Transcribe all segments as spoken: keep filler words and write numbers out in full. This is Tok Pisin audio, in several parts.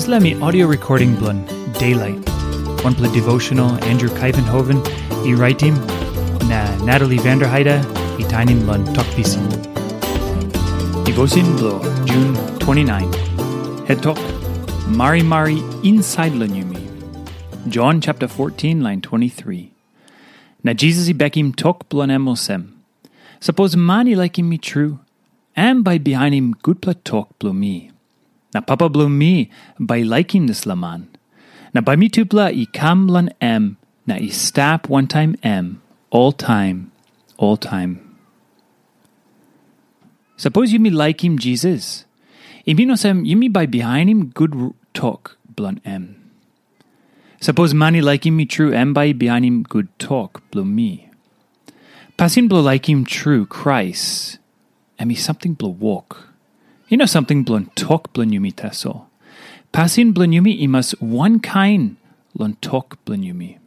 Dispela mi audio recording bilong Daylight, wanpela devotional Andrew Kaivenhoven i raitim, na Natalie Vanderheide i tainim long Tok Pisin. Devotion bilong Jun twenty-nine. Het tok, Marimari insait long yumi. Jon chapter fourteen, lain twenty-three. Na Jisas i bekim tok bilong em olsem, Sapos man i laikim mi tru, em bai i bihainim gutpela tok bilong mi. Na Papa bilong mi bai i laikim dispela man. Na bai mitupela i kam long em na i stap wantaim em oltaim, oltaim. Sapos yumi laikim Jisas, i min olsem yumi bai bihainim gut tok bilong em. Sapos man i laikim mi tru, em bai i bihainim gut tok bilong mi. Pasin bilong laikim tru Krais, em i samting bilong wok. I no samting bilong tok bilong yumi tasol. Pasin bilong yumi i mas wankain long tok bilong yumi.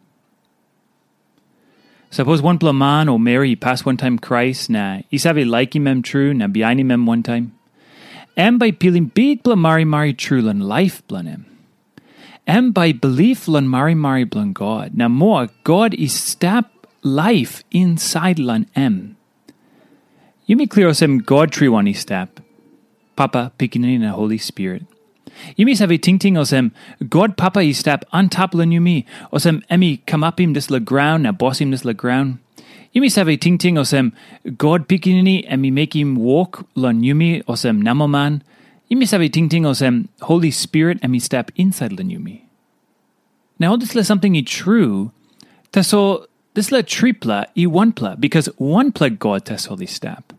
Sapos wanpela man o meri i pas wantaim Krais na i save laikim em tru na bihainim em wantaim, em bai i pilim bikpela marimari tru long laip bilong em. Em bai i bilip long marimari bilong God, na moa God i stap laip insait long em. Yumi klia olsem God triwan i stap, Papa, Pikinini na Holi Spirit. Yumi save tingting olsem God Papa i stap antap long yumi, olsem em i kamapim dispela graun na bosim dispela graun. Yumi save tingting olsem God Pikinini em i mekim wok long yumi olsem namelman. Yumi save tingting olsem Holi Spirit em i stap insait long yumi. Na ol dispela samting i tru, tasol dispela tripela i wanpela, bikas wanpela God tasol i stap.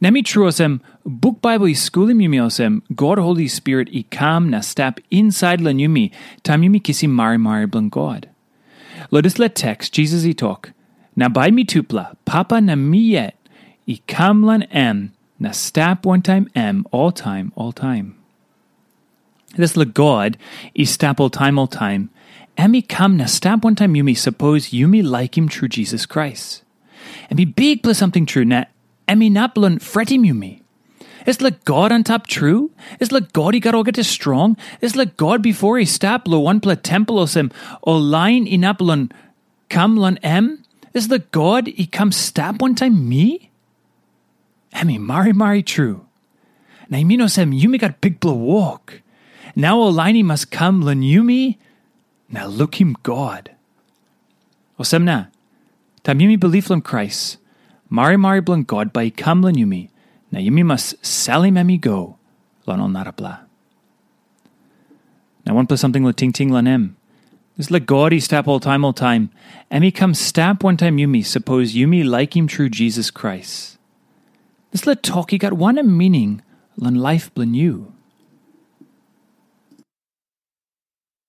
Na mi tru olsem, buk Baibel i skulim yumi olsem, God Holi Spirit i kam na stap insait long yumi, taim yumi kisim marimari bilong God. Long dispela teks, Jisas i tok, na bai mitupela, Papa na mi yet, i kam long em, na stap wantaim em oltaim, oltaim. Dispela God i stap oltaim, oltaim, em i kam na stap wantaim yumi sapos yumi laikim tru Jisas Krais. Em i bikpela samting tru, na em inap long fretim yumi. Dispela God antap tru, dispela God i gat olgeta strong, dispela God bipo i stap long wanpela tempel olsem ol lain inap long kam long em, dispela God i kam stap wantaim mi? Em i marimari tru. Na i min olsem yumi gat bikpela wok. Nau ol lain i mas kam long yumi na lukim God. Olsem na, taim yumi bilip long Krais, marimari bilong God bai i kam long yumi, na yumi mas salim em i go long ol narapela. Na wanpela samting long tingting long em. Dispela God i stap oltaim oltaim, em i kam stap wantaim yumi sapos yumi laikim tru Jisas Krais. Dispela tok i gat wanem mining long laip bilong yu?